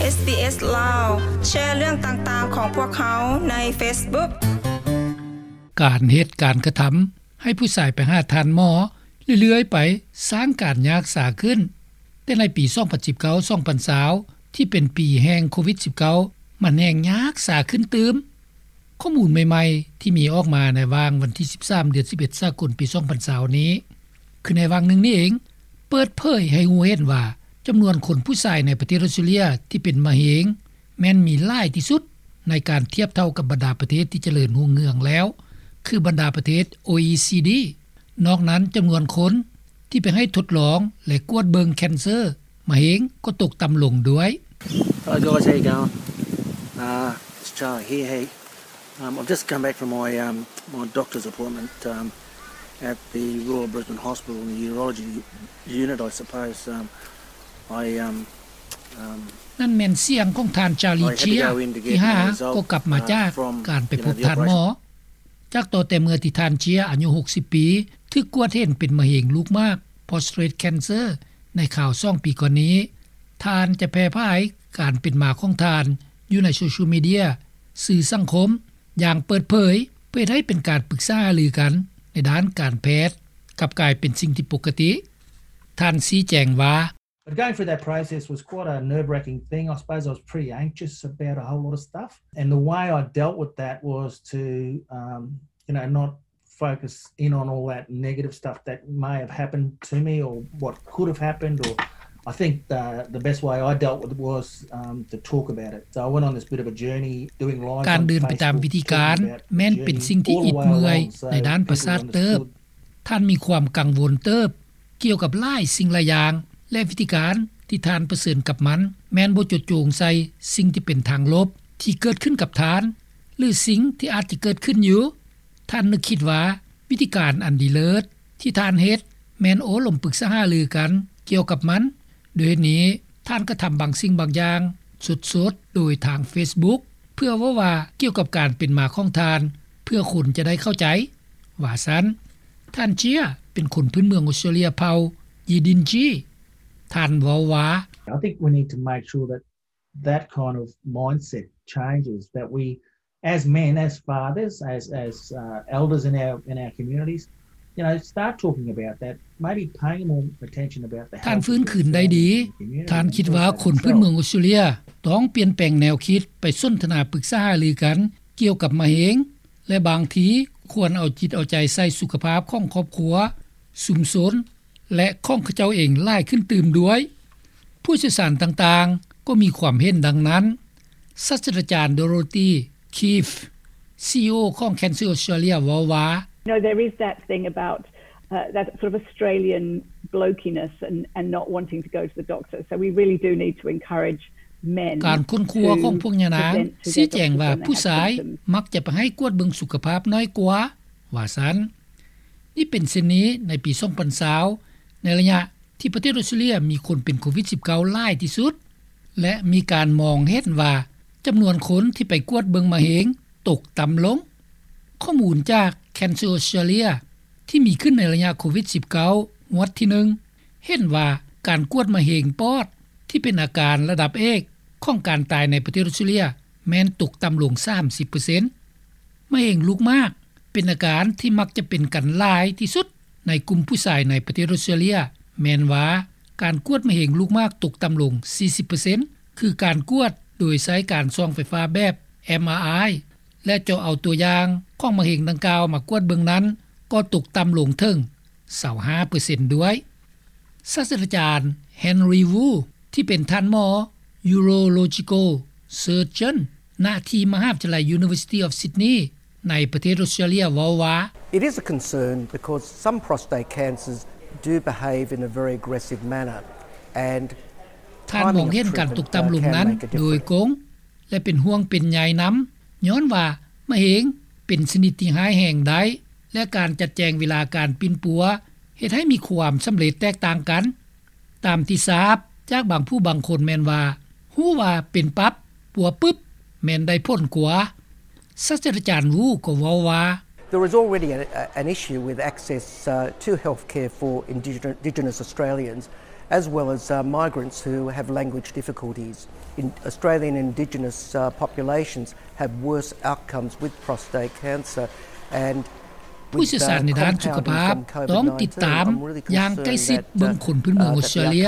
ເອສບີເອສ ລາວ ແຊເລື່ອງຕ່າງໆຂອງພວກເຮົາໃນເຟສບຸກ. ການເຮັດການກະທຳໃຫ້ຜູ້ຊາຍໄປຫາທ່ານໝໍເລື້ອຍໆໄປ ສ້າງການຍາກສາຂຶ້ນ, ແຕ່ໃນປີສອງພັນສິບເກົ້າ ສອງພັນຊາວ ທີ່ເປັນປີແຫ່ງໂຄວິດສິບເກົ້າ ມັນແຮ່ງຍາກສາຂຶ້ນຕື່ມ. ຂໍ້ມູນໃໝ່ໆທີ່ມີອອກມາໃນຫວ່າງວັນທີສິບສາມ ເດືອນສິບເອັດ ສາກົນ ປີສອງພັນຊາວນີ້ ຄືໃນຫວ່າງໜຶ່ງນີ້ເອງ ເປີດເຜີຍໃຫ້ຮູ້ເຫັນວ່າ ຈຳນວນຄົນຜູ້ຊາຍໃນປະເທດອອສເຕຣເລຍທີ່ເປັນມະເຮັງ ແມ່ນມີຫຼາຍທີ່ສຸດໃນການທຽບເທົ່າກັບບັນດາປະເທດທີ່ຈະເລີນຮຸ່ງເຮືອງແລ້ວ ຄືບັນດາປະເທດ ໂອອີຊີດີ. ນອກນັ້ນ ຈຳນວນຄົນທີ່ໄປໃຫ້ທົດລອງ ແລະ ກວດເບິ່ງແຄນເຊີ ມະເຮັງກໍຕົກຕ່ຳລົງດ້ວຍ. Hello guys, how you going? Uh, it's Charlie here. Hey, um, I've just come back from my, um, my doctor's appointment, um, at the Royal Brisbane Hospital in the urology unit, I suppose. Um, I, um, um, ນັ້ນແມ່ນສຽງຂອງທ່ານ Charlie ເຈຍ ທີ່ຫາກໍກັບມາຈາກການໄປພົບທ່ານໝໍ. ຈາກຕໍ່ແຕ່ເມື່ອທີ່ທ່ານເຈຍ ອາຍຸຫົກສິບປີ ຖືກກວດເຫັນເປັນມະເຮັງລູກໝາກ prostate cancer ໃນຄາວສອງປີກ່ອນນີ້, ທ່ານຈະແຜ່ຜາຍການເປັນມາຂອງທ່ານຢູ່ໃນໂຊຊຽວມີເດຍ, ສື່ສັງຄົມ ຢ່າງເປີດເຜີຍ ເພື່ອເຮັດໃຫ້ເປັນການປຶກສາຫາລືກັນໃນດ້ານການແພດ ກັບກາຍເປັນສິ່ງທີ່ປົກກະຕິ. ທ່ານຊີ້ແຈງວ່າ, But going through that process was quite a nerve-wracking thing. I suppose I was pretty anxious about a whole lot of stuff. And the way I dealt with that was to, um, you know, not focus in on all that negative stuff that may have happened to me or what could have happened. Or I think the, the best way I dealt with it was, um, to talk about it. So I went on this bit of a journey doing lives on Facebook, talking about the journey all the way along. ການເດີນໄປຕາມວິທີການແມ່ນເປັນສິ່ງທີ່ອິດເມື່ອຍໃນດ້ານປະສາດເຕີບ. ທ່ານມີຄວາມກັງວົນເຕີບກ່ຽວກັບຫຼາຍສິ່ງຫຼາຍຢ່າງ ແລະ ວິທີການທີ່ທ່ານປະເຊີນກັບມັນ ແມ່ນບໍ່ຈົດໂຈງໃສ່ສິ່ງທີ່ເປັນທາງລົບທີ່ເກີດຂຶ້ນກັບທ່ານ ຫຼື ສິ່ງທີ່ອາດຈະເກີດຂຶ້ນຢູ່. ທ່ານນຶກຄິດວ່າວິທີການອັນດີເລີດທີ່ທ່ານເຮັດ ແມ່ນໂອ້ລົມປຶກສາຫາລືກັນກ່ຽວກັບມັນ. ດ້ວຍເຫດນີ້, ທ່ານກະທຳບາງສິ່ງບາງຢ່າງສົດໆໂດຍທາງເຟສບຸກ ເພື່ອເວົ້າວ່າກ່ຽວກັບການເປັນມາຂອງທ່ານ ເພື່ອຄົນຈະໄດ້ເຂົ້າໃຈ ວ່າຊັ້ນ. ທ່ານເຈຍ ເປັນຄົນພື້ນເມືອງອອສເຕຣເລຍເຜົ່າຢີດິນຈີ. ທ່ານເວົ້າວ່າ, I think we need to make sure that that kind of mindset changes, that we as men, as fathers, as, as, uh, elders in our, in our communities, you know, start talking about that, maybe paying more attention about the health of themselves and the community and also for themselves. ທ່ານຟື້ນຄືນໄດ້ດີ. ທ່ານຄິດວ່າຄົນພື້ນເມືອງອອສເຕຣເລຍຕ້ອງປ່ຽນແປງແນວຄິດ ໄປສົນທະນາປຶກສາຫາລືກັນກ່ຽວກັບມະເຮັງ ແລະ ບາງທີຄວນເອົາຈິດເອົາໃຈໃສ່ສຸຂະພາບຂອງຄອບຄົວ, ຊຸມຊົນ ແລະ ຂອງເຂົາເຈົ້າເອງຫຼາຍຂຶ້ນຕື່ມດ້ວຍ. ຜູ້ຊ່ຽວຊານຕ່າງໆກໍມີຄວາມເຫັນດັ່ງນັ້ນ. ສາດສະດາຈານ Dorothy Keefe, ຊີອີໂອ ຂອງ Cancer Australia ເວົ້າວ່າ, You know, there is that thing about, uh, that sort of Australian blokiness and, and not wanting to go to the doctor. So we really do need to encourage men to present to their doctors when they have symptoms. ການຄົ້ນຄວ້າຂອງພວກຍານາງຊີ້ແຈງວ່າ ຜູ້ຊາຍມັກຈະໄປໃຫ້ກວດເບິ່ງສຸຂະພາບໜ້ອຍກວ່າ, ວ່າຊັ້ນ. ນີ້ເປັນເຊັ່ນນີ້ໃນປີສອງພັນຊາວ ໃນໄລຍະທີ່ປະເທດອອສເຕຣເລຍມີຄົນເປັນໂຄວິດສິບເກົ້າຫຼາຍທີ່ສຸດ ແລະ ມີການມອງເຫັນວ່າຈຳນວນຄົນທີ່ໄປກວດເບິ່ງມະເຮັງຕົກຕ່ຳລົງ. ຂໍ້ມູນຈາກ Cancer Australia ທີ່ມີຂຶ້ນໃນໄລຍະໂຄວິດສິບເກົ້າ ງວດທີໜຶ່ງ ເຫັນວ່າການກວດມະເຮັງປອດທີ່ເປັນອາການລະດັບເອກຂອງການຕາຍໃນປະເທດອອສເຕຣເລຍ ແມ່ນຕົກຕ່ຳລົງສາມສິບເປີເຊັນ. ມະເຮັງລູກໝາກເປັນອາການທີ່ມັກຈະເປັນກັນຫຼາຍທີ່ສຸດໃນກຸ່ມຜູ້ຊາຍໃນປະເທດອອສເຕຣເລຍ ແມ່ນວ່າການກວດມະເຮັງລູກໝາກຕົກຕ່ຳລົງສີ່ສິບເປີເຊັນ ຄືການກວດໂດຍໃຊ້ການສ່ອງໄຟຟ້າແບບ MRI ແລະ ເຈາະເອົາຕົວຢ່າງຂອງມະເຮັງດັ່ງກ່າວມາກວດເບິ່ງນັ້ນ ກໍຕົກຕ່ຳລົງເຖິງຊາວຫ້າເປີເຊັນດ້ວຍ. ສາດສະດາຈານ Henry Wu ທີ່ເປັນທ່ານໝໍ Urological Surgeon ນະທີ່ມະຫາວິທະຍາໄລ University of Sydney ໃນປະເທດອອສເຕຣເລຍເວົ້າວ່າ, It is a concern because some prostate cancers do behave in a very aggressive manner and ທ່ານມອງເຫັນການຕົກຕ່ຳລົງນັ້ນໂດຍກົງ ແລະ ເປັນຫ່ວງເປັນໃຍນຳ ຍ້ອນວ່າມະເຮັງເປັນຊະນິດທີ່ຮ້າຍແຮງໄດ້ ແລະ ການຈັດແຈງເວລາການປິ່ນປົວເຮັດໃຫ້ມີຄວາມສຳເລັດແຕກຕ່າງກັນ. ຕາມທີ່ຊາບຈາກບາງຜູ້ບາງຄົນແມ່ນວ່າ ຮູ້ວ່າເປັນປັບ ປົວປຶບ ແມ່ນໄດ້ຜົນກວ່າ. ສາດສະດາຈານ Wu ກໍເວົ້າວ່າ, There is already a, a, an issue with access, uh, to healthcare for Indigenous, Indigenous Australians. as well as, uh, migrants who have language difficulties. In Australian Indigenous, uh, populations have worse outcomes with prostate cancer and ຜູ້ຊ່ຽວຊານໃນດ້ານສຸຂະພາບຕ້ອງຕິດຕາມຢ່າງໃກ້ຊິດເບິ່ງຄົນພື້ນເມືອງອອສເຕຣເລຍ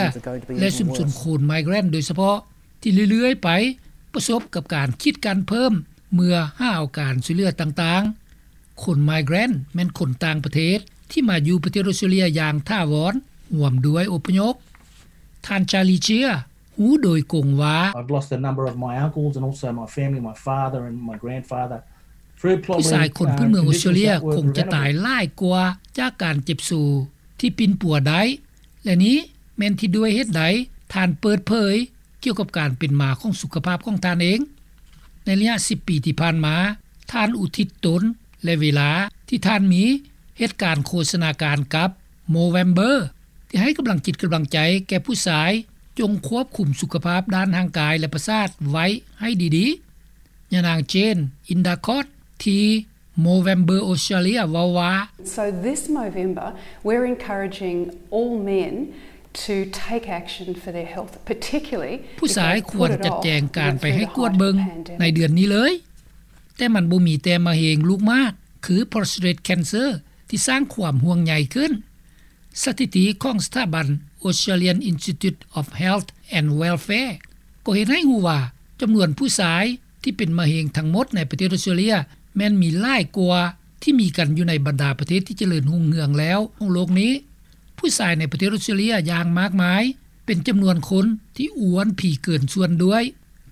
ແລະ ຊຸມຊົນຄົນໄມເກຣນໂດຍສະເພາະ ທີ່ເລື້ອຍໆໄປປະສົບກັບການຂີດກັ້ນເພີ່ມເມື່ອຫາເອົາການຊ່ວຍເຫຼືອຕ່າງໆ. ຄົນໄມເກຣນແມ່ນຄົນຕ່າງປະເທດທີ່ມາຢູ່ປະເທດອອສເຕຣເລຍຢ່າງຖາວອນ ຮ່ວມດ້ວຍອົບພະຍົບ. ທ່ານ Charlie Chia ຮູ້ໂດຍກົງວ່າ I've lost a number of my uncles and also my family, my father and my grandfather, through ຜູ້ຊາຍຄົນພື້ນເມືອງອອສເຕຣເລຍຄົງຈະຕາຍຫຼາຍກວ່າຈາກການເຈັບໂຊທີ່ປິ່ນປົວໄດ້ ແລະ ນີ້ແມ່ນທີ່ດ້ວຍເຫດໃດທ່ານເປີດເຜີຍ ກ່ຽວກັບການເປັນມາຂອງສຸຂະພາບຂອງທ່ານເອງ. ໃນໄລຍະສິບປີທີ່ຜ່ານມາ, ທ່ານອຸທິດຕົນ ແລະ ເວລາທີ່ທ່ານມີເຮັດການໂຄສະນາການກັບ Movember ທີ່ໃຫ້ກຳລັງຈິດກຳລັງໃຈແກ່ຜູ້ຊາຍ ຈົ່ງຄວບຄຸມສຸຂະພາບດ້ານຮ່າງກາຍ ແລະ ປະສາດໄວ້ໃຫ້ດີໆ. ຍານາງ Jane Indercott ທີ່ Movember Australia ເວົ້າວ່າ So this Movember, we're encouraging all men to take action for their health, particularly ຜູ້ຊາຍຄວນຈັດແຈງການໄປໃຫ້ກວດເບິ່ງໃນເດືອນນີ້ເລີຍ, ແຕ່ມັນບໍ່ມີແຕ່ມະເຮັງລູກໝາກ ຄື prostate cancer ທີ່ສ້າງຄວາມຫ່ວງໃຍຂຶ້ນ. ສະຖິຕິຂອງສະຖາບັນ Australian Institute of Health and Welfare ກໍເຮັດໃຫ້ຮູ້ວ່າ ຈຳນວນຜູ້ຊາຍທີ່ເປັນມະເຮັງທັງໝົດໃນປະເທດອອສເຕຣເລຍ ແມ່ນມີຫຼາຍກວ່າທີ່ມີກັນຢູ່ໃນບັນດາປະເທດທີ່ຈະເລີນຮຸ່ງເຮືອງແລ້ວຂອງໂລກນີ້. ຜູ້ຊາຍໃນປະເທດອອສເຕຣເລຍຢ່າງມາກມາຍ ເປັນຈຳນວນຄົນທີ່ອ້ວນຜີເກີນສ່ວນດ້ວຍ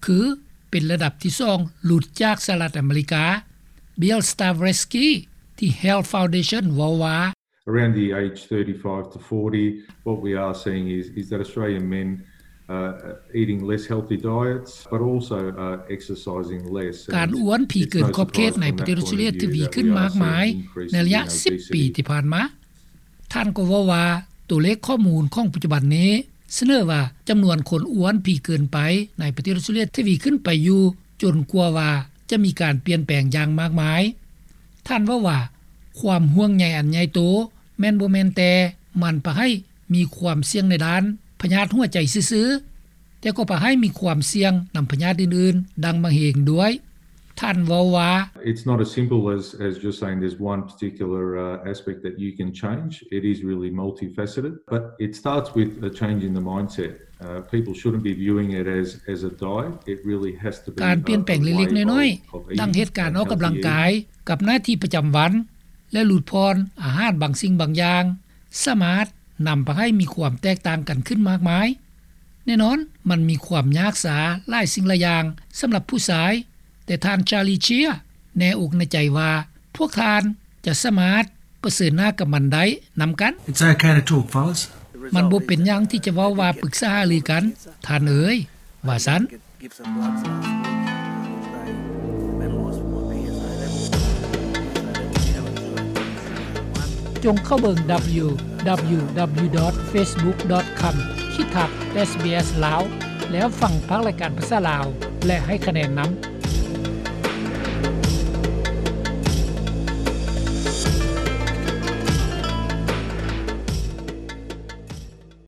ຄືເປັນລະດັບທີສອງ ຫຼຸດຈາກສະຫະລັດອາເມລິກາ. Bill Stavreski ທີ່ Health Foundation ເວົ້າວ່າ Around the age thirty-five to forty, what we are seeing is, is that Australian men, uh, eating less healthy diets, but also, uh, exercising less. ການອ້ວນຜີເກີນຂອບເຂດໃນປະເທດອອສເຕຣເລຍທະວີຂຶ້ນມາກມາຍໃນໄລຍະສິບປີທີ່ຜ່ານມາ. ທ່ານກໍເວົ້າວ່າ ຕົວເລກຂໍ້ມູນຂອງປັດຈຸບັນນີ້ສະເໜີວ່າ ຈຳນວນຄົນອ້ວນຜີເກີນໄປໃນປະເທດອອສເຕຣເລຍທະວີຂຶ້ນໄປຢູ່ ຈົນກວ່າວ່າຈະມີການປ່ຽນແປງຢ່າງມາກມາຍ. ທ່ານເວົ້າວ່າ ຄວາມຫ່ວງໃຍອັນໃຫຍ່ໂຕ ແມ່ນບໍ່ແມ່ນແຕ່ມັນພາໃຫ້ມີຄວາມສ່ຽງໃນດ້ານພະຍາດຫົວໃຈຊື່ໆ, ແຕ່ກໍພາໃຫ້ມີຄວາມສ່ຽງນຳພະຍາດອື່ນໆ ດັ່ງມະເຮັງດ້ວຍ. ທ່ານເວົ້າວ່າ It's not as simple as, as just saying there's one particular, uh, aspect that you can change. It is really multifaceted, but it starts with a change in the mindset. Uh, people shouldn't be viewing it as, as a diet. It really has to be a, a way of, of eating and healthy eating. ການປ່ຽນແປງເລັກໆນ້ອຍໆ ດັ່ງເຫດການອອກກຳລັງກາຍ ກັບໜ້າທີ່ປະຈຳວັນ ແລະ ຫຼຸດຜ່ອນອາຫານບາງສິ່ງບາງຢ່າງ ສາມາດນຳພາໃຫ້ມີຄວາມແຕກຕ່າງກັນຂຶ້ນມາກມາຍ. ແນ່ນອນ, ມັນມີຄວາມຍາກສາຫຼາຍສິ່ງຫຼາຍຢ່າງສຳລັບຜູ້ຊາຍ, ແຕ່ທ່ານ Charlie Chia ແນ່ອົກແນ່ໃຈວ່າ ພວກທ່ານຈະສາມາດປະເຊີນໜ້າກັບມັນໄດ້ນຳກັນ. It's okay to talk, fellas. ມັນບໍ່ເປັນຫຍັງທີ່ຈະເວົ້າວ່າປຶກສາຫາລືກັນ, ທ່ານເອີຍ, ວ່າຊັ້ນ. Give some bloods last week. They medalised with my P S A level. P S A level, you know, it's good. ຈົ່ງເຂົ້າເບິ່ງ www.facebook.com ຂີດທັບ SBS ລາວ ແລ້ວຟັງພາກລາຍການພາສາລາວ ແລະ ໃຫ້ຄະແນນນຳ.